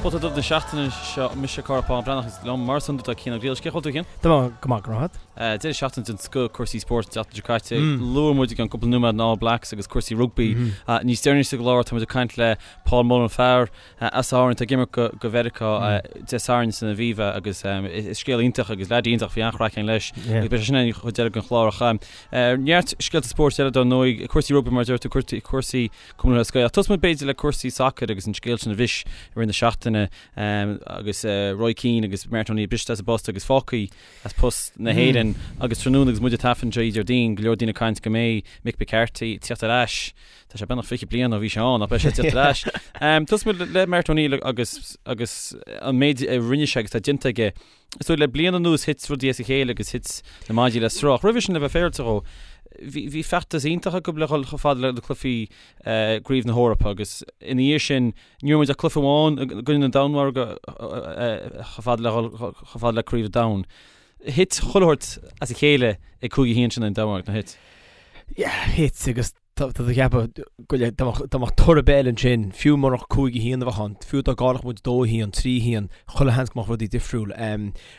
Pota Dubh na seachtaine seo, mise Cárthach Bán Breathnach agus liom mar is iondúil tá Cian Ó Griallais. Cén chaoi a bhfuil tú a Chian? Tá mé go maith, go raibh maith agat. Deireadh seachtaine den scoth cúrsaí spóirt an tseachtain seo caite. Luaigh muid i gceann cúpla nóiméad na All Blacks agus cúrsaí rugbaí. Níos deireanaí sa gclár tá muid ag caint le Paul Mullen, fear as Árainn atá ag imirt go Mheiriceá Dé Sathairn san Aviva agus is scéal iontach agus leaid iontach bhí an-chraic againn leis agus beidh sé sin ar an chuid eile den chlár ach neart scéalta spóirt eile dar ndóigh, cúrsaí rugbaí mar a deir tú, cúrsaí Cumann Lúthchleas Gael. Ach tosóidh muid b'fhéidir le cúrsaí sacair agus an scéal sin a bhris i rith na seachtaine agus Roy Keane agus Martin O'Neill briste as a bpost agus fágtha as post na hÉireann agus tráthnóna agus muid ag taifead anseo Déardaoin, go leor daoine ag caint go mbeidh Mick McCarthy ag tíocht ar ais. Tá sé beagnach 20 bliain ó bhí sé ann ach beidh sé ag tíocht ar ais. Tosóidh muid le Martin O'Neill agus agus an méid a rinne sé agus atá déanta aige. Is dóigh le bliain anuas thit rudaí as a chéile agus thit na maidí le sruth. Ach roimhe sin le bheith féaráilte dhó, bhí bhí feachtas iontach acu le dhul chomh fada le na cluichí gCraobh na hEorpa agus ina dhiaidh sin ní raibh muid ach cluiche amháin i gcoinne na Danmhairge chomh fada le dhul chomh fada le Craobh an Domhain. Thit chuile shórt as a chéile ag 5-1 sin an Danmhairg, nár thit? Yeah, thit agus Tá tú ag ceapadh go le dá mbeadh toradh ar bith eile ansin, fiú murach 5-1 a bheadh ann, fiú dá gcaillfeadh muid 2-1, 3-1, chuile sheans go mbeadh rudaí difriúil.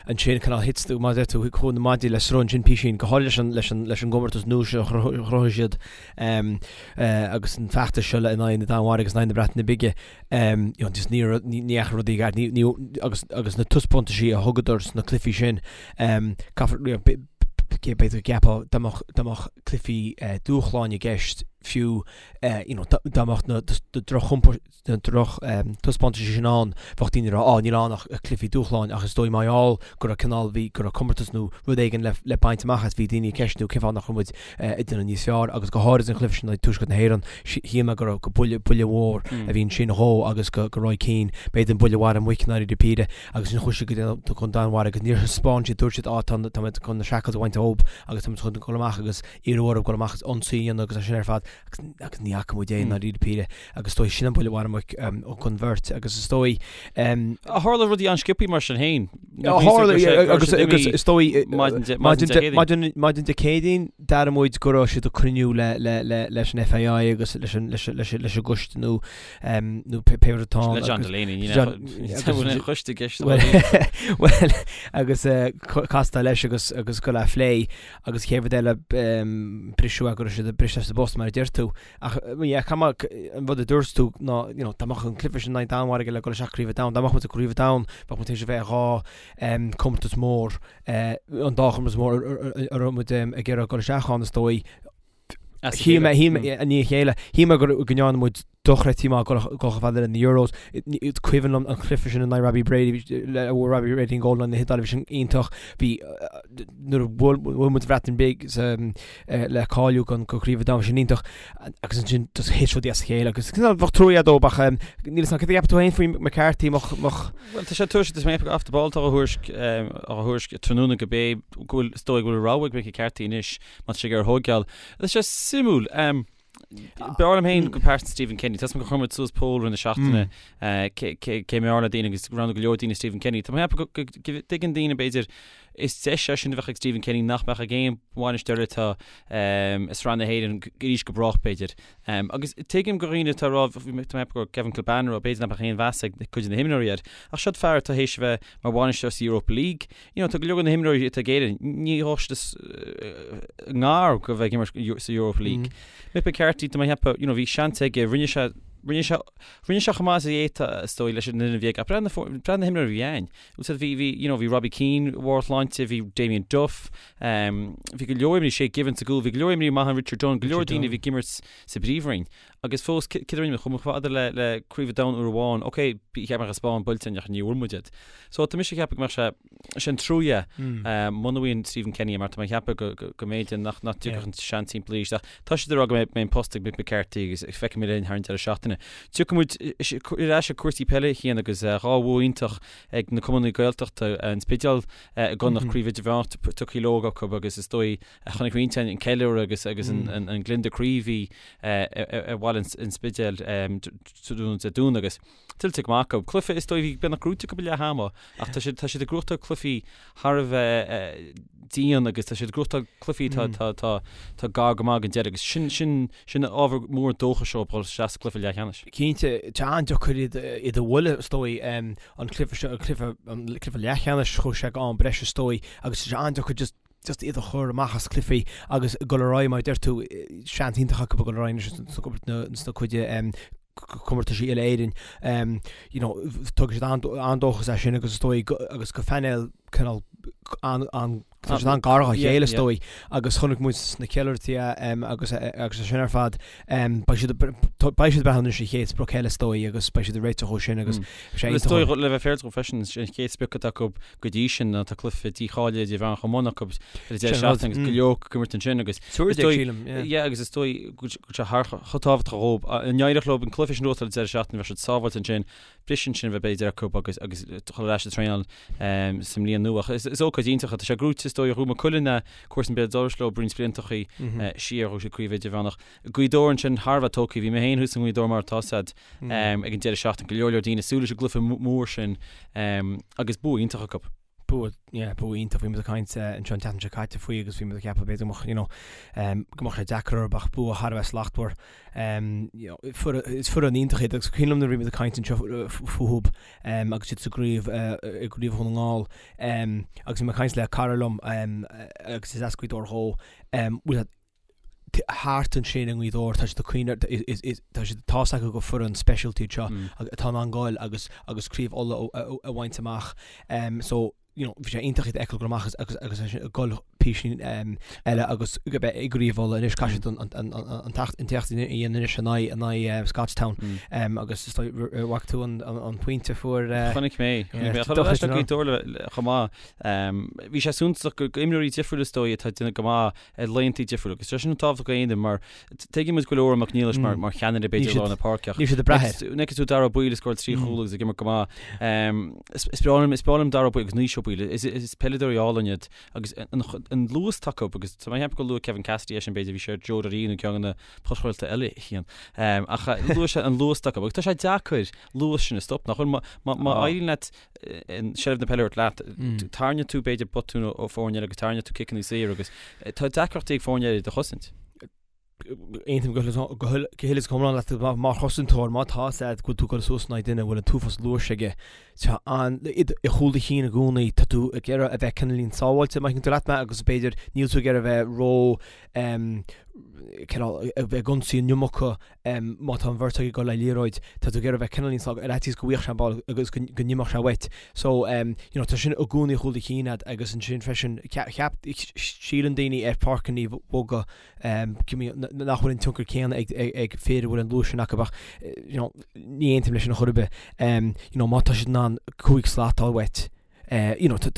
Ansin cineál thit, mar a deir tú, chuaigh na maidí le sruth ansin písín, go háirithe leis an, leis an, leis an gcomórtas nua seo a chruthaigh siad agus an feachtas seo le in aghaidh na Danmhairge agus in aghaidh na Breataine Bige. You know, just ní raibh, ní dheachaigh rudaí i gceart, ní, ní, agus, agus na taispeántaisí a thugadar sna cluichí sin, caithfear, you know, b'fhéidir go gceapfá dá mbeadh, dá mbeadh cluichí dúshláin i gceist fiú you know dá mbeadh na droch na droch taispeántaisí sin ann bheadh daoine ag rá á níl ann ach cluichí dúshláin ach is dóigh mar gheall go raibh cineál bhí go raibh comórtas nó rud éigin le le baint amach as bhí daoine ag ceistiú cén fáth nach raibh muid ag déanamh níos fearr agus go háirid an cluiche sin i Tuaisceart na hÉireann shíl mé go raibh go buille buille mhór a bhí ansin dhó agus go go Roy Keane b'fhéidir an buille mharaigh muic i ndáiríre píre agus ansin chuaigh siad go dtí an Danmhairg agus níor thaispeáin siad dúirt siad á tá tá muid chun na shackles a bhaint dhóibh agus tá muid chun dul amach agus iarraidh orthu dul amach agus ionsaí a dhéanamh agus é sin ar fad agus agus ní fhaca muid é i ndáiríre píre agus is dóigh sin an buille mharaigh muic don bheirt agus is dóigh Tharla rudaí an-sciobthaí mar sin féin. Tharla agus agus is dóigh maidin maidin Dé Céadaoin d'airigh muid go raibh siad ag cruinniú le le le leis an FAI agus leis an leis leis leis an gcoiste nó nó pé rud atá ann. Le John Delaney, ní aon choiste i gceist. Bhuel agus castáil leis agus agus go le phlé agus chéad rud eile briseadh go raibh siad briste as a bpost mar a deir tú. Ach yeah, caithfidh mé an rud a dúirt tú ná you know, dá mbeadh an cluiche sin in aghaidh Danmhairge le dul isteach Craobh an Domhain, dá mbeadh muid i gCraobh an Domhain, bheadh muid tar éis a bheith i dhá comórtas mór, an dá chomórtas mór a raibh muid ag iarraidh dul isteach ann is dóigh. Shíl mé, shíl mé, i ndiaidh a chéile, shíl mé go ndearna muid dochreidte maith dul chomh fada le na Euros. Is cuimhin liom an cluiche sin in aghaidh Robbie Brady, a bhfuair Robbie Brady an gól in aghaidh na hIodáile, bhí sin iontach. Bhí, nuair a bhuail muid an Bhreatain Bhig le cáiliú go Craobh an Domhain, bhí sin iontach. Agus ansin just thit rudaí as a chéile agus bheadh trua dóibh ach níl 'fhios a'm céard a cheapann tú féin faoi McCarthy, mbeadh. Bhuel, tá sé tuairiscithe, tá mé ag Off the Ball atá á thuairisc, á thuairisc tráthnóna go bé go bhfuil, is dóigh go bhfuil rogha ag Mick McCarthy anois Má tá sé ag iarraidh thóigeáil. Tá sé suimiúil. B'fhearr liom féin go pearsanta Stephen Kenny. Tá 'fhios a'm gur chuir muid suas poll i rith na seachtaine cé mb'fhearr le daoine agus roghnaigh go leor daoine Stephen Kenny. Tá mé ag ceapadh go dtuigeann daoine b'fhéidir is deis é sin a bheadh ag Stephen Kenny nach mbeadh ag aon bhainisteoir atá i Sraith na hÉireann arís go brách b'fhéidir. Agus tuigim go dhaoine atá ag rá, tá mé ag ceapadh go raibh Kevin Kilbane ag rá b'fhéidir nach mbeadh aon mheas ag cuid de na himreoirí air. Ach seod fear atá théis a bheith mar bhainisteoir sa Europa League, You know, tá go leor de na himreoirí atá ag Éirinn, ní gheobhadh siad i ngar go bheith ag imirt sa Europa League. Mick McCarthy, tá mé ag ceapadh, you know, bhí seans aige, rinne sé, rinne sé, rinne sé chomh maith is a d'fhéadfadh, is dóigh, leis an fhoireann a bhí aige. Ach breathnaigh na, breathnaigh na himreoirí a bhí ann. Bhfuil bhí, bhí, you know, bhí Robbie Keane i mbarr a shláinte, bhí Damien Duff, um, bhí go leor imreoirí, Shay Given sa gcúl, bhí go leor imreoirí maithe, Richard Dunne, go leor daoine a bhí ag imirt sa bpríomhroinn. Agus fós, céard a rinne muid? Chuaigh muid chomh fada le, le Craobh an Domhain uair amháin. Ok, cheap mé go raibh Spáinn buailte againn ach ní bhfuair muid iad. So tá mise ag ceapadh go mbeadh sé, sé an trua é muna bhfaigheann Stephen Kenny é mar tá mé ag ceapadh go, go, go mb'fhéidir nach, nach dtiocfadh an seans timpeall arís. Ach tá siad ag rá go mbeidh, mbeidh an post ag Mick McCarthy agus feicfidh muid linn thar an deireadh seachtaine. Tiocfaidh muid ar ais ag cúrsaí peile a Chian agus dhá bhua iontach ag na cumannaí Gaeltachta, an Spidéal i gConnacht, Craobh Idirmheánach tugtha leo acu agus is dóigh Chonaic roinnt an ceiliúradh agus agus an gliondar croí a bhí ar bhaile an Spidéil tráthnóna Dé Domhnaigh agus tuillte go maith acu. Cluiche is dóigh bhí beagnach gnóite acu ag leath ama ach tá siad tá siad ag gnóthachtáil cluichí thar a bheith dian agus tá siad ag gnóthachtáil cluichí tá tá tá tá gar go maith don deireadh agus sin sin sin ábhar mór dóchais dóibh dul isteach sa gcluiche leathcheannais. Cinnte, tá an-deacair iad iad a bhualadh is dóigh an cluiche seo an cluiche an cluiche leathcheannais chuaigh sé go am breise is dóigh agus tá sé an-deacair just just iad a chur amach as cluichí agus dul ar aghaidh mar a deir tú seans iontach acu dul ar aghaidh anois sna cuid comórtaisí uile-Éireann. You know, tugann siad an-dóchas é sin agus is dóigh agus go phainéal cineál an an tá siad an-gar dá chéile is dóigh agus chonaic muid sna ceiliúrthaí agus agus é sin ar fad beidh siad beidh siad ag breathnú anois ar an chéad sprioc eile is dóigh agus beidh siad ag réiteach dó sin agus sé Is dóigh le bheith féaráilte freisin an chéad sprioc atá acu go dtí sin ná tá cluiche dícháilithe idirmheánach chomh maith acu ar an deireadh seachtaine agus go leor ag imirt ansin agus is dóigh yeah agus is dóigh go bhfuil sé thar chomh tábhachtach dhóibh. Dá n-éireodh leo an cluiche sin a ghnóthachtáil ar an deireadh seachtaine bheadh siad sábháilte ansin briseadh ansin a bheith b'fhéidir acu agus agus dul ar ais ag traenáil sa mbliain nua. Ach is is ócáid iontach é. Tá sé gnóite is dóigh Ghnóthaigh Maigh Cuilinn cúrsaí béal dorais leo roinnt bliantachaí siar ghnóthaigh siad craobh idirmheánach. Gaoth Dobhair ansin thar a bheith tógtha. Bhí mé féin thuas i nGaoth Dobhair mar atá a fhios agat ag an deireadh seachtaine. Go leor leor daoine ag súil leis an gcluiche mór sin agus bua iontach acu. Bua, yeah, bua iontach. Bhí muid ag caint anseo an tseachtain seo caite faoi agus bhí muid ag ceapadh b'fhéidir go mbeadh, you know, go mbeadh sé deacair orthu ach bua thar a bheith slachtmhar. You know, is foireann iontach iad agus cuimhin liom nuair a bhí muid ag caint anseo fúthu agus iad sa gcraobh, i gcraobh Dhún na nGall agus bhí mé ag caint le cara liom agus is as Gaoth Dobhair dhó, bhfuil thart ansin i nGaoth Dobhair, tá siad ag cuimhneamh, tá siad, tá 's acu gur foireann speisialta iad seo atá in ann goil agus agus craobh Uladh a bhaint amach. So, you know, bhí sé iontach iad a fheiceáil goil amach agus agus ag goil píosaín eile agus go beith i gcraobh Uladh anois caithfidh siad an an an t-éacht a dhéanamh anois in aghaidh in aghaidh Scotstown agus is dóigh bhfaca tú an an pointe a fuair Chonaic mé, chonaic mé. Chonaic mé Gaoth Dobhair chomh maith. Bhí sé suntasach go imreoirí difriúla is dóigh atá ag déanamh go maith ar laethanta difriúla agus tá sin tábhachtach go haon mar tuigeann muid go bhfuil Odhrán Mac Niallais mar mar cheannaire b'fhéidir lár na páirce ach níl siad ag brath air. Nuair a fheiceann tú Dara Ó Baoill ag scóráil trí chúl agus ag imirt go maith. Is breá liom is breá liom Dara Ó Baoill agus Naoise Ó Baoill is is peileadóirí álainn iad agus an an luas atá acu agus tá mé ag ceapadh gur luaigh Kevin Cassidy é sin b'fhéidir bhí sé ar Joe Doreen nó ceann de na podchraolta eile a Chian. Ach luaigh sé an luas atá acu agus tá sé deacair luas sin a stop nach bhfuil má má éiríonn leat seilbh na peile a thabhairt leat. Tarraingeoidh tú b'fhéidir botún ó foirne eile agus tarraingeoidh tú ciceanna saor agus tá deacrachtaí ag foirne eile iad a chosaint. Aontaím go huile is go hiomlán leat mar chosantóir má tá a fhios agat go bhfuil tú ag dul suas in aghaidh duine a bhfuil an t-uafás luais aige tá an i chúl do chinn i gcónaí tá tú ag iarraidh a bheith cineáilín sábháilte má thuigeann tú leat mé agus b'fhéidir níl tú ag iarraidh a bheith ró cineál a bheith ag ionsaí an iomarca má tá an bheirt ag dul le liathróid, tá tú ag iarraidh bheith cineál níos ar fhaitíos go bhfaigheadh sé an ball agus go n-imeodh sé uait. So, you know, tá sin i gcónaí i chúl do chinn agat agus ansin freisin, cheap, síleann daoine ar pháirceanna boga nach bhfuil an tionchar céanna ag ag fir a bhfuil an luas sin acu ach, you know, ní aontaím leis sin ar chor ar bith. You know, má tá siad in ann 5 slat a fháil uait, you know, tá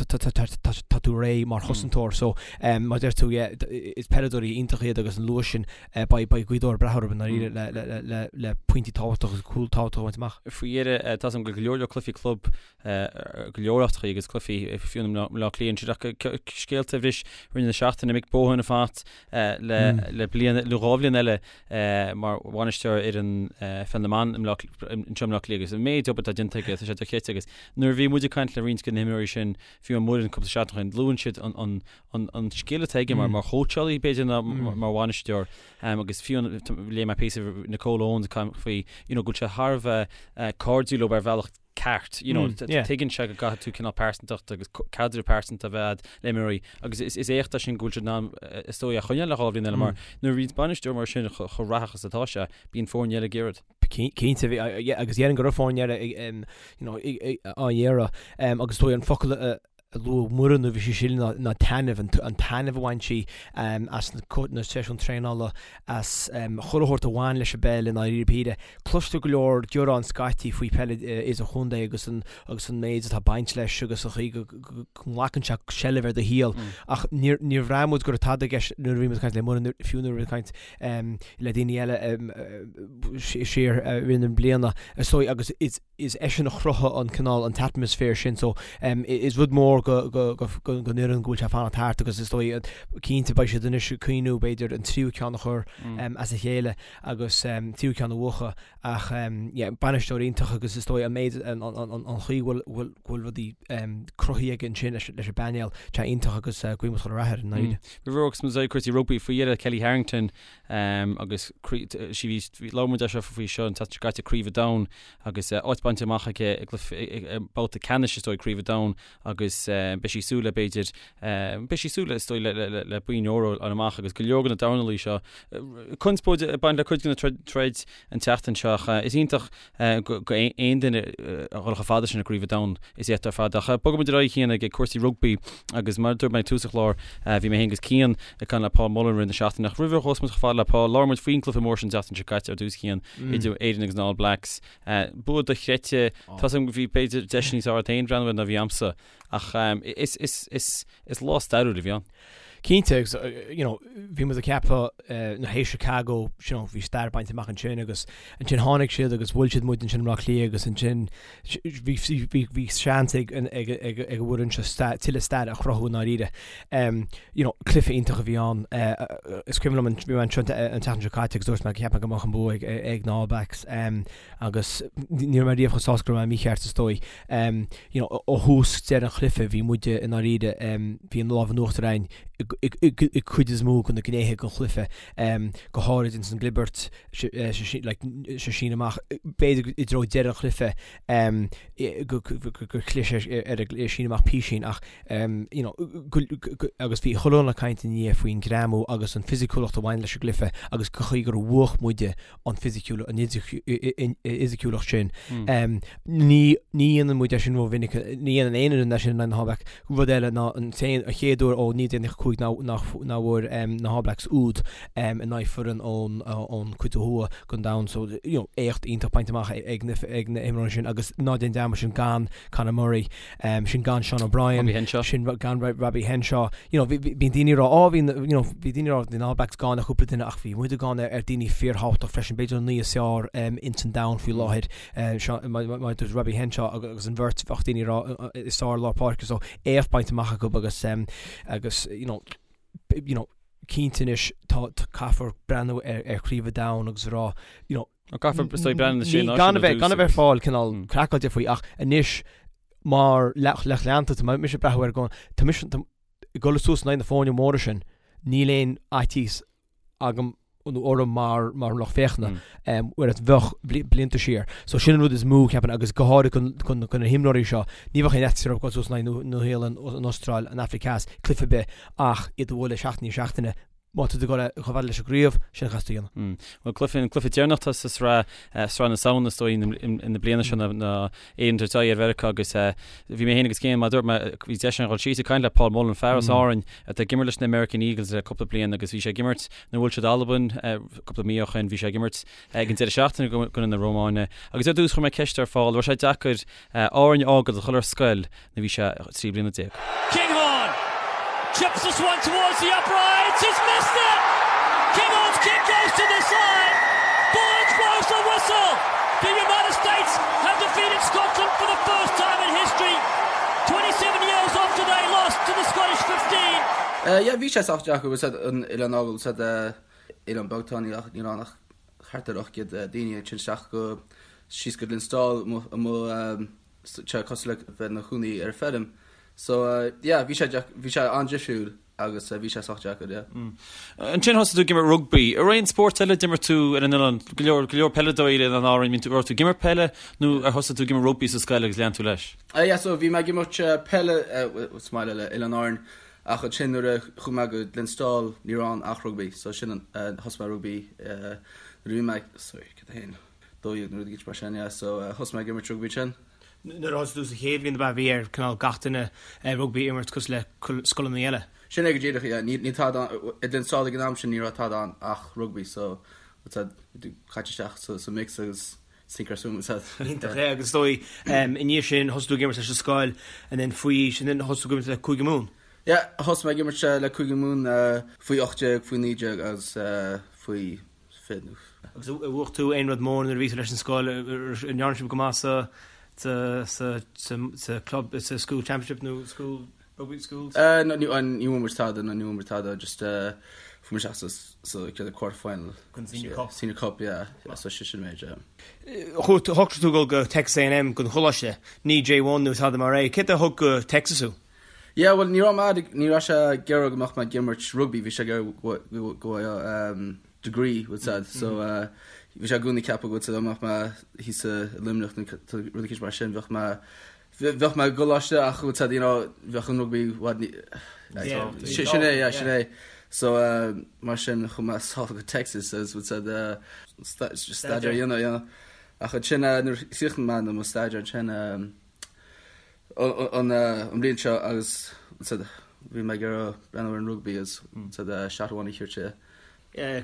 tú réidh mar chosantóir so mar a deir tú yeah is peileadóirí iontach iad agus an luas sin beidh beidh Gaoth Dobhair ag brath orthu i ndáiríre le le le le le pointí tábhachtacha agus cúil tábhachtacha a bhaint amach. Faoi dheireadh tá a fhios agam go leor leor cluichí club go leor áiteachaí agus cluichí fiú i mBleá Cliath ansin ach scéalta a bhris i rith na seachtaine Mick Bohan ag fanacht le le bliain nó dhá bhliain eile mar bhainisteoir fhoireann pheil na mban anseo i mBleá Cliath agus an méid obair atá déanta aige tá sé dochreidte agus Nuair a bhí muid ag caint le roinnt de na himreoirí sin, fiú an Muireann cúpla seachtain ó shin, luann siad an scil atá aige mar chóitseálaí b'fhéidir ná mar bhainisteoir agus fiú léigh mé píosa Nicole Owens ag caint faoi you know go bhfuil sé thar a bheith cairdiúil leo ar bhealach ceart you know tuigeann sé go gcaithfidh tú cineál pearsantacht agus caidreamh pearsanta a bheith agat le imreoirí agus is éacht é sin go bhfuil siad in ann is dóigh é a choinneáil le dhá bhliain eile mar nuair a bhíonn bainisteoir mar sin chomh rathach is atá sé bíonn foirne eile ag iarraidh. Cinnte, agus déarfainn go raibh foirne eile á iarraidh agus is dóigh an focal a luaigh Muireann nuair a bhí sí sin ná taitneamh, an taitneamh a bhain sí as na seisiúin traenála, as chuile shórt a bhain leis an bpeil i ndáiríre píre. Cloistear go leor gearán scaití faoi peil idirchontae agus an agus an méid atá ag baint leis agus an chaoi go nglacann sé seilbh ar do shaol ach níor bhraith muid go raibh tada i gceist nuair a bhí muid ag caint le Muireann, fiú nuair a bhí muid ag caint le daoine eile siar i rith na bliana is dóigh agus is eisean a chruthaigh an cineál an t-atmaisféar sin so is rud mór. mór go don fhoireann go bhfuil sé ag fanacht thart agus is dóigh cinnte beidh siad anois ag cuimhniú b'fhéidir an tríú ceann a chur as a chéile agus tríú ceann a bhuachan ach yeah bainisteoir iontach agus is dóigh an méid an chaoi go bhfuil go bhfuil rudaí cruthaithe aige ansin leis an bpainéal tá iontach agus guím chuile rath air i ndáiríre. Roimh a bhogfas muid cúrsaí rugbaí faoi dheireadh Kellie Harrington agus sí bhí labhair muid anseo faoi seo an tseachtain seo caite Craobh an Domhain agus áit bainte amach aici i gcluiche babhta ceannais is dóigh Craobh an Domhain agus beidh sí ag súil le b'fhéidir beidh sí ag súil le is dóigh le le boinn óir a fháil amach agus go leor de na dornálaí seo conspóid ag baint le cuid de na troid an tseachtain seo ach is iontach go aon duine a dhul chomh fada sin i gCraobh an Domhain is éacht ar fad. Ach bogfaidh muid ar aghaidh Cian ag cúrsaí rugbaí agus mar a dúirt mé ag tús an chláir bhí mé féin agus Cian ag caint le Paul Mullen i rith na seachtaine ach roimh a ghabhfas muid chomh fada le Paul labhair muid faoin gcluiche mór sin an tseachtain seo caite ar dtús Cian idir Éirinn agus na All Blacks. Bua dochreidte, tá 's agam go bhí b'fhéidir deis níos fearr agat féin breathnú air ná bhí a'msa ach is is is is lá stairiúil a bhí ann. Cinnte, agus you know, bhí muid ag ceapadh tar éis Chicago, you know, bhí stair bainte amach ansin agus ansin tháinig siad agus bhuail siad muid ansin i mBleá Cliath agus ansin bhí bhí bhí seans ag ag ag ag an bhfoireann seo tuilleadh stair a chruthú i ndáiríre. Um, you know, cluiche iontach a bhí ann. Uh, is cuimhin liom an bhí mé anseo an tseachtain seo caite agus dúirt mé go cheap mé go mbeadh an bua ag ag na All Blacks. Um, agus ní raibh mé riamh chomh sásta go raibh mé mícheart is dóigh. You know, ó thús deireadh an chluiche bhí muide i ndáiríre, bhí an lámh in uachtar againn i cuid is mó de na gnéithe den chluiche, go háirid ins an gclibirt, like, sa síneadh amach, b'fhéidir i dtreo deireadh an chluiche gur chlis ar an síneadh amach písín ach you know, agus bhí chuile dhuine ag caint ina dhiaidh faoin ngreamú agus an fisiciúlacht a bhain leis an gcluiche agus go chaoi gur bhuach muide an fisiciúlacht, an fhisiciúlacht sin. Ní dhéanann muid é sin rómhinic, ní dhéanann aon fhoireann é sin in aghaidh na hAll Blacks. Rud eile ná an t-aon, an chéad uair ó 1995 nach bhfuair na hAll Blacks úd in aghaidh foireann ón ón cuid ó thuaidh den domhan. So, you know, éacht iontach bainte amach ag na ag na himreoirí sin agus ná déan dearmad sin gan Conor Murray, sin gan Sean O'Brien, Robbie Henshaw. sin gan Robbie Henshaw. You know, bíonn daoine ag rá, oh, bhí, you know, bhí daoine ag rá, bhí na All Blacks gann ar chúpla duine ach bhí muide gann ar, ar daoine fíorthábhachtach freisin, b'fhéidir an naoi is fearr um, ins an domhan faoi láthair, uh, Sean, mar, mar, mar dúirt Robbie Henshaw agus an bheirt bheadh daoine ag rá is fearr lár páirce, so éacht bainte amach acu agus, um, agus, you know, you know, cinnte anois tá, tá caithfear breathnú ar, ar chraobh an domhain agus a rá, you know, Caithfear is dóigh breathnú na sé náisiún gan a bheith gan a bheith fáil cineál craiceáilte faoi ach anois mar lucht leanta tá mise ag breathnú air go tá mise ag dul suas in aghaidh na foirne móra sin níl aon fhaitíos agam nó orm mar mar lucht féachana whereas bheadh blianta siar. So sin an rud is mó ceapaim agus go háirithe chun chun na himreoirí seo ní bheadh aon fhaitíos orthu dul suas in aghaidh Nua-Shéalainn, an Astráil, an Afraic Theas, cluiche ar bith ach iad a bhualadh seachtain i ndiaidh seachtaine Má tá tú ag dul chomh fada leis an gcraobh, sin a chaithfeas tú a dhéanamh. Bhuel, cluiche, an cluiche deireanach atá sa sraith, sraith na Samhna is dóigh, na bliana seo ná Éirinn ag tabhairt aghaidh ar Mheiriceá agus bhí mé féin agus Cian, mar a dúirt mé, bhí deis againn dhul síos ag caint le Paul Mullen, fear as Árainn atá ag imirt leis na American Eagles le cúpla bliain agus bhí sé ag imirt nuair a bhuail siad Albain cúpla mí ó shin, bhí sé ag imirt ag an deireadh seachtaine i gcoinne na Rómáine agus ar dtús chuir mé ceist ar Paul, raibh sé deacair Árainn a fhágáil a dhul ar scoil nuair bhí sé 13 bliana. Kinghorn chips this one towards the uprights, he's missed it! Kinghorn's kick goes to the side, Burns blows the whistle! The United States have defeated Scotland for the first time in history, 27 years after they lost to the Scottish 15. Yeah, bhí sé sách deacair, bhfuil 's a'd an oileán a fhágáil, bhfuil 's a'd oileán beag atá ann, níl ann ach thart ar 800 daoine, ansin isteach go síos go Glenstal amuigh sé cosúil le bheith ina chónaí ar feirm. So yeah, bhí sé bhí sé an-difriúil agus bhí sé sách deacair, yeah. Ansin thosaigh tú ag imirt rugbaí. An raibh aon spórt eile a d'imir tú ar an oileán? Go leor, go leor peileadóirí ar Oileáin Árann. Bhí tú, raibh tú ag imirt peile nó ar thosaigh tú ag imirt rugbaí sa scoil agus lean tú leis? Yeah, so bhí mé ag imirt peile sa mbaile le Oileáin Árann ach ansin nuair a chuaigh mé go Glenstal ní raibh ann ach rugbaí. So sin an, thosaigh mé rugbaí nuair a bhí mé, sorry, cad é féin? 12 nó rud éigin mar sin, yeah, so thosaigh mé ag imirt rugbaí ansin. Nuair a thosaigh tú sa chéad bhliain ab ea bhí ar cineál gach duine rugbaí a imirt cosúil le scoileanna eile? Sin é go díreach, yeah, níl tada ann, i Glenstal ag an am sin ní raibh tada ann ach rugbaí so bhfuil 's a'd, caite isteach sa mix agus sink or swim bhfuil 's a'd. Iontach, yeah, agus is dóigh i ndiaidh sin thosaigh tú ag imirt leis an scoil and then faoi aois and then thosaigh tú ag imirt le Cúige Mumhan? Yeah, thosaigh mé ag imirt le Cúige Mumhan faoi 18, faoi 19 agus faoi Agus ar bhuaigh tú aon rud mór nuair a bhí tú leis an scoil? An ndearna sibh go maith sa. sa sa sa sa club sa school championship nó school rugby schools? No ní ní bhfuair muid tada no ní bhfuair muid tada just fuair muid isteach sa sa chéad quarter final. Gon senior cup. Senior cup yeah yeah so sin sin méid yeah. Shocraigh tú dul go Texas A&M gon choláiste, ní J1 nó tada mar é. Céard a thug go Texas thú? Yeah bhuel ní raibh mé ní raibh sé ag iarraidh go mbeadh mé ag imirt rugby bhí sé ag iarraidh go go bhfaigheadh degree bhfuil a fhios a'd so bhí sé i gcónaí ag ceapadh go bhfuil a fhios a'd dá mbeadh mé thíos i Luimneach nó rud eicínt mar sin bheadh mé bheadh mé i gcoláiste ach bhfuil a fhios a'd you know bheadh an rugby i bhfad ní sin é yeah sin é so mar sin chuaigh mé sall go Texas agus bhfuil a fhios a'd staidéar a dhéanamh you know ach ansin nuair a chríochnaigh mé mo staidéar ansin an bhliain seo agus bhí mé ag iarraidh breathnú ar an rugbaí agus shot amháin a thabhairt.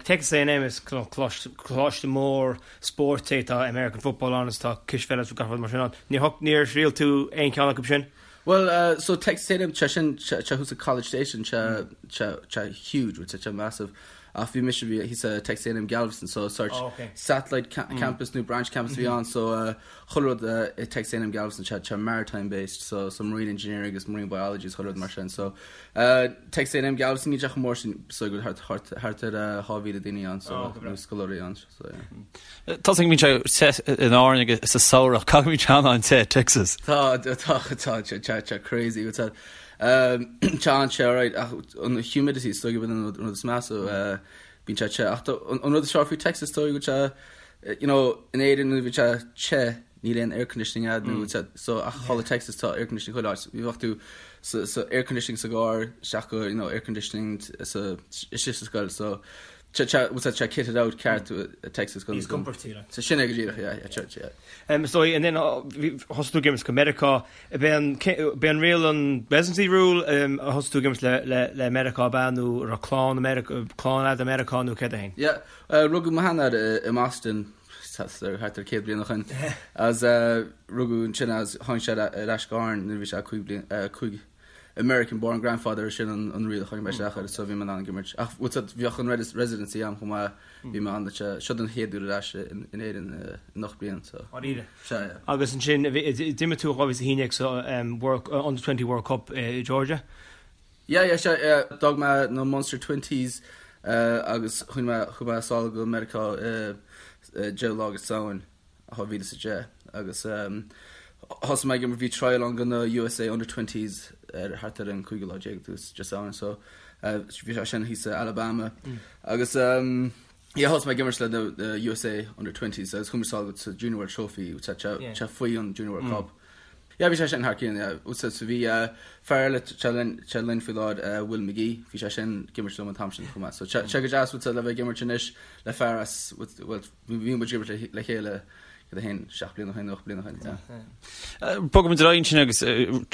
Texas A&M is coláiste mór spóirt é, tá American football ann is tá cispheil is gach rud mar sin ann. Níor thriail tú aon cheann acu sin? Bhuel, so Texas A&M, tá sin, tá thuas i College Station, tá sé huge, tá sé massive. Ach bhí mise, bhí thíos i Texas A&M Galveston, so sort satellite campus nó branch campus a bhí ann, so chuile rud i Texas A&M Galveston tá sé maritime based so so marine engineering agus marine biology is chuile rud mar sin so Texas A&M Galveston níl sé chomh mór sin so go thart thart thart ar 2,000 daoine ann so oh, nó scoláirí ann so yeah. Tá go mbíonn sé te in Árainn agus sa samhradh caithfidh go mbíonn sé an-te Texas. Tá tá tá tá tá tá crazy tá tá an-te alright ach an humidity is dóigh go an rud is measa bíonn sé te ach an rud is fearr faoi Texas dóigh go sé You know, in Éirinn nuair a bhíonn sé te, níl aon air conditioning a'd nó mm. so ach thall i Texas tá air conditioning chuile áit. Bhí bheadh tú sa, sa air conditioning sa gcarr, isteach go, you know, air conditioning sa, istigh sa scoil, so tá tá tá kitted out ceart mm. Texas go. Níos compordaí like. So sin é go díreach, yeah, yeah, church, yeah. Um, so and then uh, thosaigh tú ag imirt go Meiriceá, b'é an b'é an riail an residency rule um, a thosaigh tú ag imirt le, le, le Meiriceá ab ea nó raibh clann America, clann a'd i Meiriceá nó céard é féin? Yeah, Rugadh mo sheanathair i mBoston thart ar 100 bliain ó shin agus rugadh ansin é agus tháinig sé ar ais go hÁrainn nuair a bhí sé 5 bliain, 5 American born grandfather sin an riail a tháinig mé isteach air so bhí mé in ann ag imirt. Ach bhfuil fhios a'd bheadh an residency a'm chomh maith, bhí mé ann seo don chéad uair ar ais in Éirinn in 8 bliain so. Dáiríre. Sea, yeah. Agus ansin d'imir tú 2011 sa Under 20 World Cup i Georgia. Yeah, yeah, sea, yeah. D'fhág mé na Munster Twenties agus chuaigh mé, chuaigh mé sall go Meiriceá i deireadh lá de Samhain 2010 agus thosaigh mé ag imirt, bhí trial ann go na USA Under Twenties ar thart ar an cúigiú lá déag de Samhain so bhí sé sin thíos i Alabama agus yeah thosaigh mé ag imirt le na USA Under Twenties agus chuaigh mé sall go sa Junior World Trophy, sé faoi an Junior World Cup. Yeah, bhí sé sin thar cionn, yeah. So bhí fear eile atá linn, linn faoi láthair, Will McGee, bhí sé sin ag imirt liom an t-am sin chomh maith. So sé go deas le bheith ag imirt anois le fear as, bhuel, bhí muid ag imirt le chéile cad é féin, 7 bliana ó shin, 8 bliana ó shin, yeah. Bogfaidh muid ar aghaidh ansin agus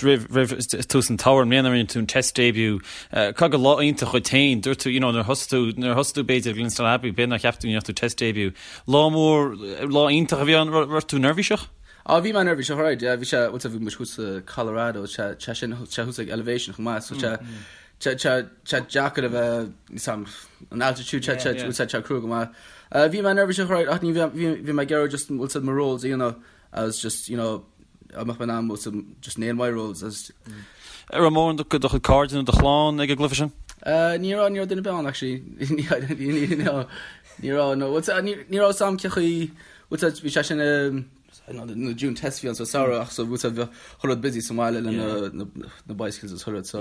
roimh, roimh tús an tsamhraidh, i mbliana rinne tú an test debut. Caithfidh gur lá iontach dhuit féin, dúirt tú, you know, nuair a thosaigh tú, nuair a thosaigh tú b'fhéidir ag Glenstal Abbey, b'fhéidir nár cheap tú go ndéanfadh tú test debut. Lá mór, lá iontach a bhí ann, raibh tú neirbhíseach? Á, bhí mé neirbhíseach, alright, yeah, bhí sé, bhuel, bhí muid thuas i Colorado, sé, sé sin, sé thuas ag elevation chomh maith, so sé, sé, sé, sé deacair a bheith, níl 's a'm, an altitude, sé, sé, bhuel, sé, sé crua go maith. Uh, bhí mé neirbhíseach, alright, ach ní bhí, bhí, bhí mé ag iarraidh just, bhuel, mo roles a dhéanamh, agus just, you know, a mbeadh mé in ann, bhuel, just nail my roles, agus. An raibh mórán de do chuid cairde nó do chlann ag an gcluiche sin? Uh, ní raibh, ní raibh duine ar bith ann, actually. Ní, ní, ní, ní raibh, no, bhuel, ní, ní raibh 's a'm cén chaoi, Bhuel bhí sé sin na June test bhí ann sa samhradh ach so bhuel bhí chuile rud busy sa mbaile le na na bicycles is chuile rud so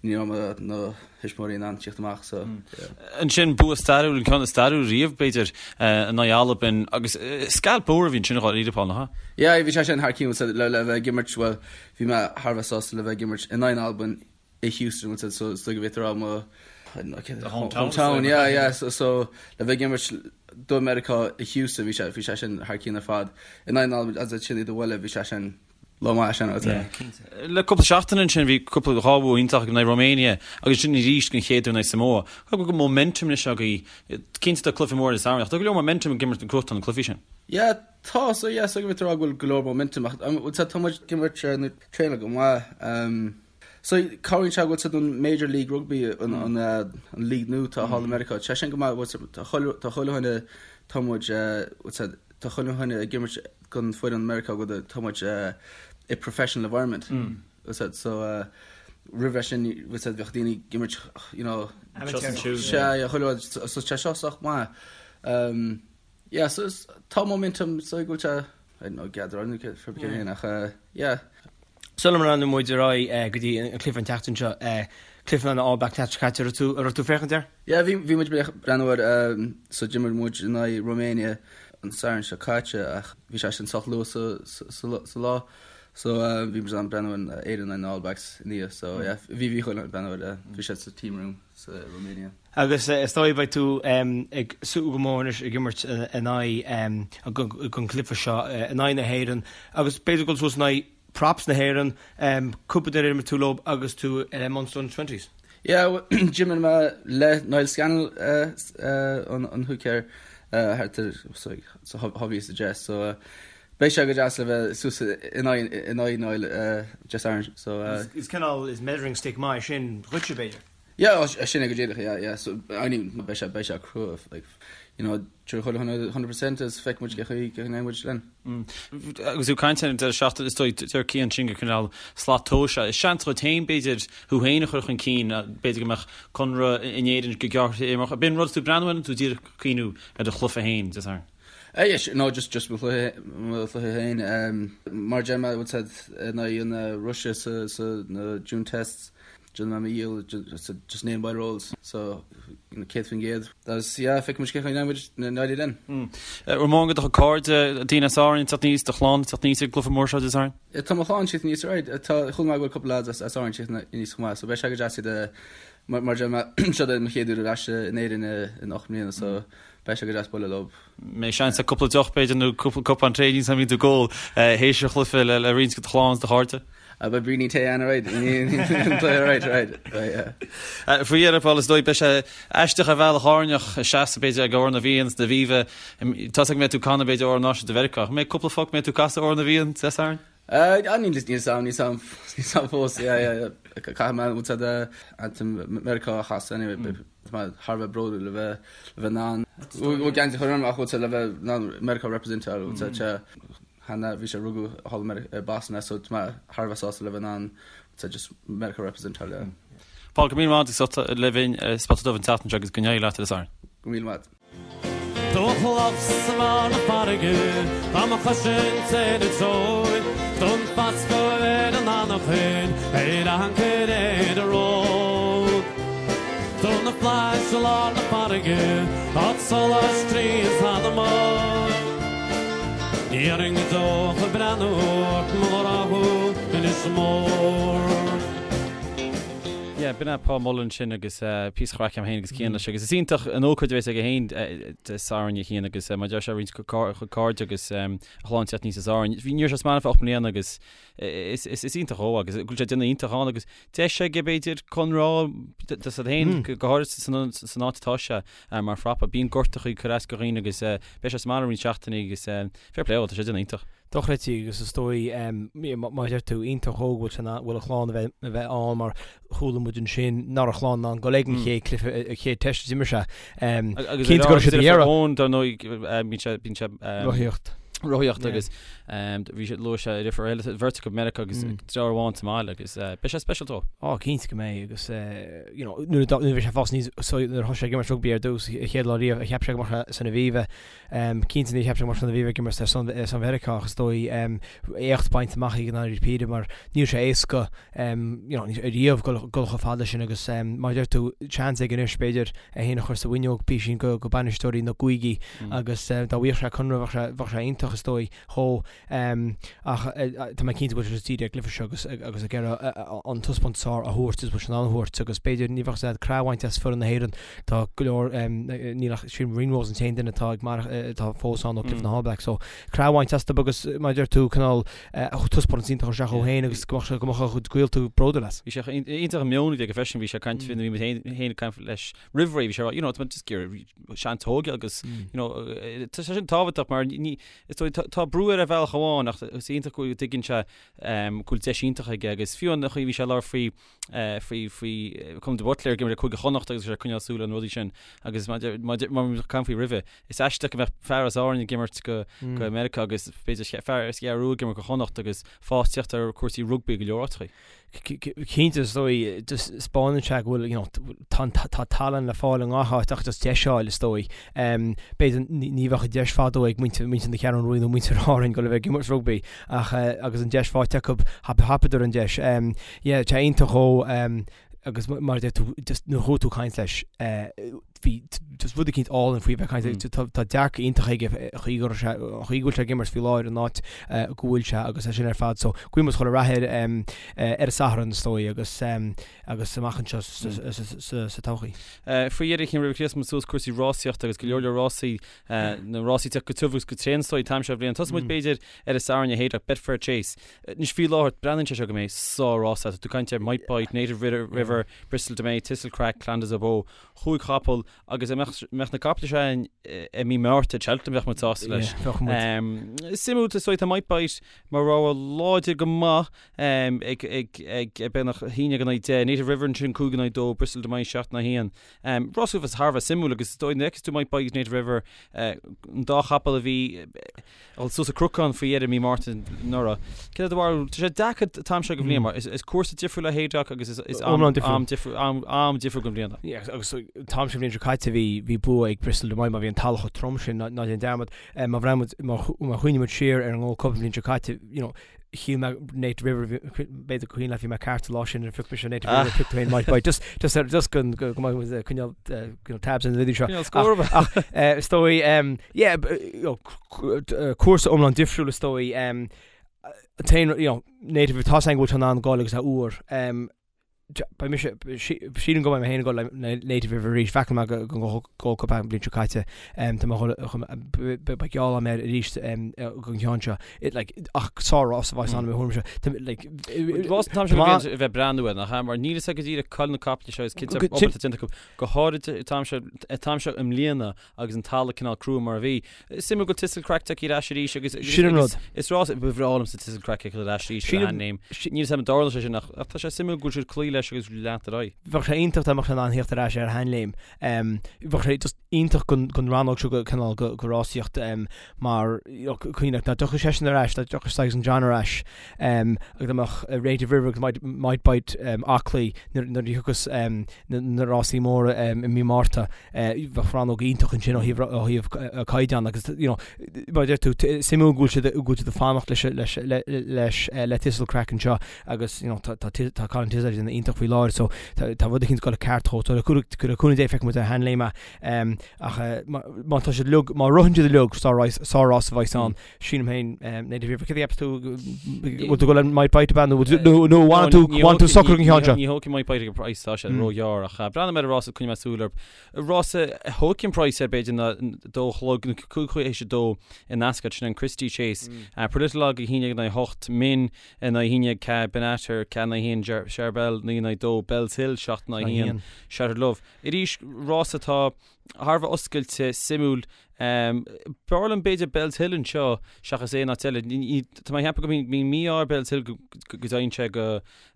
ní raibh na thuismitheoirí in ann tíocht amach so yeah. Ansin bua stairiúil, an ceann is stairiúil riamh b'fhéidir in aghaidh Albain agus scalp mór a bhí ansin dháiríre Paul, nach ea? Yeah bhí sé sin thar cionn le le bheith ag imirt bhuel bhí mé thar a bheith sásta le bheith ag imirt in aghaidh Albain i Houston bhuel so is dóigh go bhféadfá a rá mo hometown yeah yeah so so le bheith ag imirt do Meiriceá i Houston bhí sé bhí sé sin thar cionn ar fad in aghaidh na hAlban agus sin i do bhaile bhí sé sin lá maith sin yeah cinnte. Le cúpla seachtain ansin bhí cúpla dhá bhua iontach in aghaidh Romania agus ansin arís den chéad uair in aghaidh Samoa. Caithfidh go bhfuil momentum anois agaibh cinnte tá cluiche mór sa samhradh ach tá go leor momentum ag imirt ag gnóthachtáil na cluichí sin. Yeah tá so yeah so go bhféadfá a rá go bhfuil go leor momentum ach tá muid ag imirt nó traenáil go maith So, cabhraíonn sé go bhfuil siad an Major League Rugby, an an league nua atá thall i Meiriceá, tá sé sin go maith, bhfuil tá chuile tá chuile dhuine, tá muid, bhfuil tá chuile dhuine ag imirt don foireann Meiriceá go tá muid i professional environment. Bhfuil so roimh sin bhfuil bheadh daoine ag imirt you know sea yeah chuile rud so tá seo sách maith. Um, yeah so tá momentum so go bhfuil sé I don't know gather on for beginning ach yeah. Sula mbreathnóidh muid ar aghaidh go dtí an cluiche an tseachtain seo, cluiche na All Blacks an tseachtain seo caite, an raibh tú ag féachaint air? Yeah, bhí bhí muid ag breathnú air so d'imir muid in aghaidh Romania an Satharn seo caite ach bhí sé sin sách luath sa sa sa lá so bhí muid in ann breathnú ar Éirinn in aghaidh na All Blacks inniu so yeah bhí bhí chuile breathnú air bhí sé sa team room sa Romania. Agus is dóigh beidh tú ag súil go mór anois ag imirt in aghaidh an cluiche seo in aghaidh na hÉireann agus b'fhéidir dul suas in aghaidh props na hÉireann, cúpla duine ar imir tú leo agus tú i Munster Under Twenties. Yeah, d'imir mé le Niall Scannell an hooker thart ar sorry sa 2010 so beidh sé go deas le bheith suas in aghaidh Niall Dé Sathairn so. Is cineál is measuring stick maith sin dhuitse b'fhéidir. Yeah, sin é go díreach, yeah, yeah. So, I mean, beidh sé, beidh sé crua, like, you know, tabharfaidh chuile dhuine 100% is feicfidh muid cén chaoi, cén chaoi a ndéanfaidh muid linn. Agus tú ag caint ar an deireadh seachtaine, is dóigh, deir Cian sin gur cineál slat tomhais é. Is seans dhuit féin, b'fhéidir, thú féin a chur chun cinn, b'fhéidir go mbeadh conradh in Éirinn go gearrthéarmach. Ab in rud tú ag breathnú air nó tú díreach ag cuimhniú ar do chluiche féin, Dé Sathairn? Eh, yeah, no, just, just mo chluiche, mo chluiche féin. Mar a deir mé, bhfuil a fhios agat, in aghaidh na Rúise sa, sa, na June tests, Déanfaidh mé mo dhícheall just name by rolls so 100% agus yeah feicfidh muid cén chaoi a ndéanfaidh muid in aghaidh linn. An mórán de do chuid cairde, daoine as Árainn ag teacht aníos, do chlann ag teacht aníos ag an gcluiche mór seo Dé Sathairn? Tá mo chlann ag teacht aníos alright. Tá chuala mé go bhfuil cúpla lads as as Árainn ag teacht aníos chomh maith so beidh sé go deas iad a mar mar a deir mé seo é mo chéad uair ar ais in Éirinn in 8 mbliana so beidh sé go deas bualadh leo. mbeidh seans ag cúpla deoch b'fhéidir nó cúpla cupán tae níl a fhios agam an mbíonn tú ag ól théis an chluiche le roinnt de do chlann is do chairde. Beidh braoinín tae ann alright alright alright yeah. Faoi dheireadh Paul is dóigh beidh sé aisteach ar bhealach Árainneach ag seasamh b'fhéidir ag Amhrán na bhFiann san Aviva. Tá a fhios agam go mbeidh tú ag canadh b'fhéidir Amhrán Náisiúnta Mheiriceá. An mbeidh cúpla focal mbeidh tú ag casadh Amhrán na bhFiann Dé Sathairn? Níl a fhios agam, níl a fhios agam, níl a fhios agam fós, yeah, yeah, yeah. Caithfidh mé bhfuil a fhios agat anthem Meiriceá a chasadh anyway, tá mé thar a bheith bródúil le bheith, le bheith in ann, bhfuil geansaí a chur orm ach bhfuil a fhios agat le bheith in ann Meiriceá representáil, bhfuil a fhios agat, cheana, bhí sé rugadh thall i Boston so tá mé thar a bheith sásta le bheith in ann, bhfuil a fhios agat, just Meiriceá representáil, yeah. Paul, go raibh míle maith agat as ucht a bheith linn ar Spota Dubh an tseachtain seo agus go n-éirí leat Dé Sathairn. Go raibh míle maith. Dumhcha sa mbarr na farraige, tá mo chois ar an tseoil, Don fascadh ar an anachain, ar ancaire ar an ród. Do na flaithis i lár na farraige, tá solas tríd anama. Ní dhéarfainn go deo ach ag breathnú ort mo ghrá thú, Inis Mór. Yeah, b'in é Paul Mullen sin agus píosa craic agam féin agus Cian leis agus is iontach an ócáid a bheas aige féin Dé Sathairn a Chian agus mar a deir sé roinnt a chuid cairde agus a chlann teacht aníos as Árainn. Bhí ní raibh sé sa mbaile fá 8 mbliana agus is is iontach dhó agus go bhfuil sé ag déanamh iontach ann agus deis aige b'fhéidir conradh dó féin go háirid san san áit atá sé mar phrapa. Bíonn gortachaí ag cur as do dhaoine agus beidh sé sa mbaile roinnt seachtainí agus fair play dhó, tá sé ag déanamh iontach. Dochreidte agus is dóigh, mar a deir tú, iontach dhó go bhfuil a chlann a bheith ann mar chuala muid ansin nach raibh a chlann in ann dul ag an chéad cluiche, an chéad teist a d'imir sé. Cinnte go raibh siad ag iarraidh. Eoin, dar ndóigh, bíonn sé, bíonn sé. Rothaíocht. Rothaíocht agus bhí sé, luaigh sé a dheirfiúr eile, bheirt acu i Meiriceá agus deartháir amháin sa mbaile agus beidh sé speisialta dó. Á, cinnte go mbeidh agus you know, nuair a bhí sé ag fás aníos, nuair a thosaigh sé ag imirt rugbaí ar dtús, a chéad lá riamh, cheap sé go mbeadh sé san Aviva. Cinnte níor cheap sé go mbeadh sé san Aviva ag imirt ar son Mheiriceá ach is dóigh éacht bainte amach aige i ndáiríre píre mar níl sé éasca you know ariamh dul chomh fada leis sin agus mar a deir tú seans aige anois b'fhéidir é féin a chur sa bhfuinneog písín go bainisteoirí na gcúigí agus dá bhfaigheadh sé conradh bheadh sé iontach is dóigh dhó. Ach tá mé cinnte go bhfuil sé just dírithe ar an gcluiche seo agus agus ag iarraidh an taispeántas is fearr a thabhairt is bhfuil sé in ann a thabhairt agus b'fhéidir ní bheadh sé crá a bhaint as foireann na hÉireann. Tá go leor níl ach sílim Ringrose an t-aon duine atá ag mar atá fós ann ó chluiche na All Blacks so crá a bhaint astu agus mar a deir tú cineál taispeántas iontach a thabhairt isteach ó féin agus go mbeadh sé go mbeadh a chuid gaolta bródúil as. Bhí sé iontach an meon a bhí aige freisin, bhí sé ag caint faoi nuair a bhí muid féin ag caint leis roimh ré, bhí sé ag rá you know tá mé just ag iarraidh seans a thógáil agus you know tá sé sin tábhachtach mar ní is. Is dóigh, tá brú air ar bhealach amháin ach is iontach go dtuigeann sé go bhfuil deis iontach aige agus fiú an chaoi a bhí sé ag labhairt faoi faoi faoi Colm de Buitléar ag imirt le Cúige Chonnacht agus sé ag coinneáil súil ar na rudaí sin agus mar mar a caint faoi roimhe is aisteach go mbeadh fear as Árainn ag imirt go go Meiriceá agus b'fhéidir fear as an gCeathrú Rua ag imirt go Chonnacht agus fás ag teacht ar cúrsaí rugbaí go leor áiteachaí. Cinnte, is dóigh, just 'spáineann sé go bhfuil, you know, tá, tá tallann le fáil i ngach áit ach just deis a fháil, is dóigh. B'fhéidir ní bheadh an deis fadó ag muintir, muintir na Ceathrún Rua nó muintir Árainn dul a bheith ag imirt rugbaí ach agus an deis faighte acu, thapaíodar an deis. Yeah, tá iontach dhó agus mar a deir tú, just nuair a chuaigh tú ag caint leis, bhí just rud eicínt álainn faoi bheith ag caint, tá dearcadh iontach aige an chaoi go raibh sé, an chaoi go bhfuil sé ag imirt faoi láthair an áit go bhfuil sé agus é sin ar fad. So guíonn muid chuile rath air ar an Satharn is dóigh agus agus amach anseo sa todhchaí. Faoi dheireadh cinn roimh chríochnaigh muid suas cúrsaí rásaíochta agus go leor leor rásaí, na rásaí ag teacht go tiubh agus go tréan is dóigh an t-am seo bhliain. Tosóidh muid b'fhéidir ar an Satharn a Haydock, Betfair Chase. Anois faoi láthair breathnaíonn sé seo go mbeidh sár-rás Tá tú ag caint ar Might Bite, Native River, Bristol De Mai, Thistlecrack, Clan Des Obeaux. Chúig chapall agus dá mbeadh na caiple seo againn i mí Márta i Cheltenham bheadh muid sásta leis. Bheadh muid. Suimiúil is dóigh tá Might Bite mar rogha láidir go maith ag ag ag beagnach 11-10, Native River ansin 5-2, Bristol De Mai 7-1. Rás a bheas thar a bheith suimiúil agus is dóigh nuair a fheiceas tú Might Bite agus Native River an dá chapall a bhí dul suas an cnocán faoi dheireadh mí Márta anuraidh. Céard é do bharúil? Tá sé deacair an t-am seo den bhliain mar is cúrsa difriúil é Haydock agus is am am difriúil am am difriúil den bhliain é. Yeah, agus an t-am seo bhliain seo caite bhí bhí bua ag Bristol De Mai mar bhí an talamh chomh trom sin ná ná déan dearmad. Má bhreathnaíonn muid má má chuimhníonn muid siar ar an Gold Cup an bhliain seo caite, you know, shíl mé Native River b'fhéidir gur cuimhin leat bhí mé ceart an lá sin ar phioc mise Native River phioc tú féin Might Bite. Just just ar just go go go mbeidh muid ag coinneáil you know, tabs ar na rudaí seo. Coinneáil scór. Ach ach is dóigh yeah you know, cúrsa iomlán difriúil is dóigh. An t-aon you know, Native tá a fhios againn go bhfuil sé in ann goil agus é úr. Beidh mise, sílim go mbeidh mé féin ag dul le Native River arís. Bhreathnaigh mé go Gold Cup an bhliain seo caite. Tá mé beidh geall agam air arís don cheann seo. Like, ach sár-rás a bheas ann i mo thuairimse. Like, Rás an t-am seo a bheith ag breathnú air, nach ea? Mar níl a fhios agat go díreach cá bhfuil na caiple seo is cinnte obair atá déanta acu. Go háirid an t-am seo, an t-am seo i mbliana agus an talamh cineál crua mar a bhí. Is suimiúil go bhfuil Thistlecrack tagtha ar ais arís agus Sin an rud. Is rás ba bhreá liomsa Thistlecrack ag dul ar ais arís ar a sheanléim. Níl a fhios agam an dtarlóidh sé sin ach tá sé suimiúil go bhfuil siad ag cloí leis agus leantar ar aghaidh. Bheadh sé iontach dá mbeadh sé in ann theacht ar ais ar a sheanléim. Bheadh sé just iontach don rannóg seo cineál de rásaíocht mar cuimhnigh dá dtiocfadh seisean ar ais, dá dtiocfadh Saxon John ar ais agus dá mbeadh Native River agus Might Bite aclaí nuair a thiocfas na rásaí móra i mí Márta. Bheadh rannóg iontach ansin ó thaobh ó thaobh caighdeán agus you know mar a deir tú suimiúil go bhfuil siad go bhfuil siad ag fanacht leis leis leis le Thistlecrack anseo agus you know tá tá tá Colin Tizzard ag déanamh iontach faoi láthair so tá tá rud eicínt ag dul ceart dhó so le cúnamh Dé feicfidh muid ar a sheanléim é ach má tá siad uilig má ritheann siad uilig sár-rás a bheas ann. Sílim féin, Native River, céard a cheapas tú, bhfuil tú ag dul le Might Bite ab ea nó nó bhfanann tú bhfanann tú socair don cheann seo? Ní thógfaidh Might Bite ag an praghas tá sé róghearr ach breathnóidh mé ar an rás coinneoidh mé súil air. Rás a thógfaidh an praghas air b'fhéidir ná dó a chlog nó cúig théis a dó in Ascot sin an Christie Chase. Politologue 11-8, Min 9-1, Benatar 4-1, Charbel 9-2, Bellshill 7-1, Shattered Love. Arís rás atá thar a bheith oscailte, suimiúil. B'fhearr liom b'fhéidir Bellshill anseo seachas aon áit eile. Tá mé ag ceapadh go mbíonn mí-ádh ar Bellshill go dtéann sé go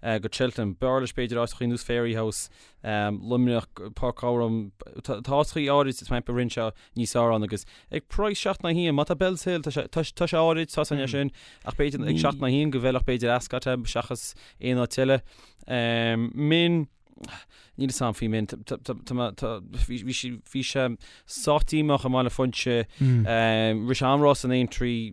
go Cheltenham. B'fhearr leis b'fhéidir áiteachaí ar nós Fairyhouse, Luimneach, Páirc Ghabhráin. Tá áiteachaí áirid tá mé ag ceapadh a ritheann sé níos fearr ann agus ag praghas 7 in aghaidh 1, má tá Bellshill, tá sé tá sé áirid, tá sé sin, ach b'fhéidir ag 7 in aghaidh 1 go bhfeilfeadh b'fhéidir Ascot é seachas aon áit eile. Min. Níl fhios a'm faoi Min. Bhí sé sách díomách i mBaile Phuinse. Rith sé an-rás in Aintree.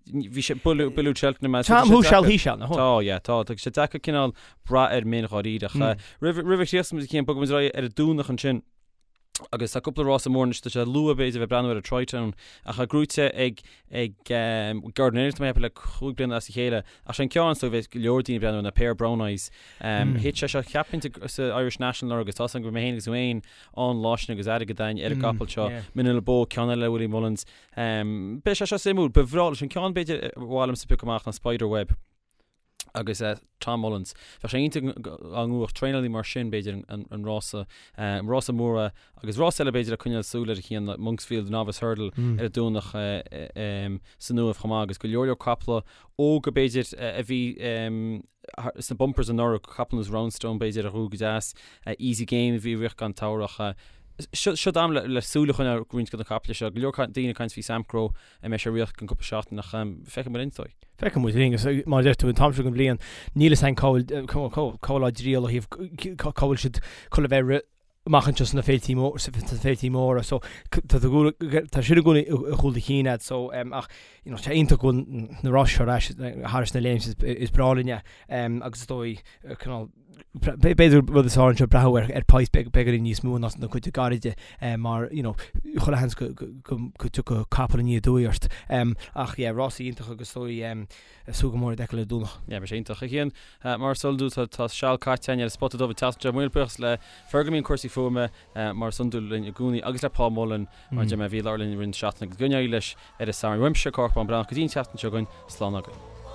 Bhí sé builleadh Cheltenham. Tá who shall he shall. Tá, yeah, tá. Tá sé deacair cineál brath ar Min dháiríre. Roimh a chríochnóidh muid Cian, bogfaidh muid ar aghaidh ar an Domhnach ansin. Agus tá cúpla rása mór anois, tá sé luath b'fhéidir a bheith ag breathnú ar an Tritone, ach tá gnóite ag ag Gordon Elliott tá mé ag ceapadh le chúig bliana as a chéile, ach sé an ceann is dóigh a bheidh go leor daoine ag breathnú air ná Pair of Brown Eyes. Thit sé seo cheapfainn sa Irish National anuraidh agus tá a fhios agam go raibh mé féin agus tú féin ann lá sin agus airgead againn ar an gcapall seo, Manila Beau, ceann eile le Willie Mullins. Beidh sé seo suimiúil, ba bhreá leis an ceann b'fhéidir ba mhaith liomsa piocadh amach ná Spider Web. Agus Tom Mullins. Bheadh sé iontach dá mbuafadh traenálaí mar sin, b'fhéidir, an rása, an rása mór agus rás eile b'fhéidir le coinneáil súil air a Chian, Monksfield Novice Hurdle ar an Domhnach san Uaimh chomh maith agus go leor leor caiple óga b'fhéidir a bhí sna bumpers anuraidh, caiple ar nós Roundstone b'fhéidir a ghnóthaigh go deas, Easy Game a bhí ag rith gan t-amhrach. Seo am le súil a choinneáil ar roinnt de na caiple seo. Go leor daoine ag caint faoi Samcro a mbeidh sé ag rith i gceann cúpla seachtain ach feicfidh muid linn is dóigh. Feicfidh muid linn agus mar a deir tú an t-am seo den bhliain níl fhios againn cá bhfuil cá bhfuil á dtriall ó thaobh cá bhfuil siad chun a bheith ag rith amach anseo sna féiltí mór sna féiltí móra so tá tá sin i gcónaí i gcúl do chinn agat so ach you know tá iontach go bhfuil na ráis seo ar ais thar na léim is breá linn é agus is dóigh cineál B'fhéidir rud is fearr anseo breathnú ar praghas beagáinín níos mó ná na cuid gairide mar you know chuile sheans go dtiocfadh capall aniar aduaidh ort. Ach yeah, rásaí iontach agus is dóigh súil go mór iad a fheiceáil ar an Domhnach. Yeah, beidh sé iontach. A Chian, mar is eol duit tá seal caite againn ar an Spota Dubh an tseachtain seo. Míle buíochas le Fergal i mbun cúrsaí fuaime mar is iondúil linn i gcónaí agus le Paul Mullen mar a deir mé a bhí i láthair linn i rith na seachtaine agus go n-éirí leis ar an Satharn. Uaimse, Cárthach Bán Breathnach, go dtí an tseachtain seo chugainn, slán agaibh.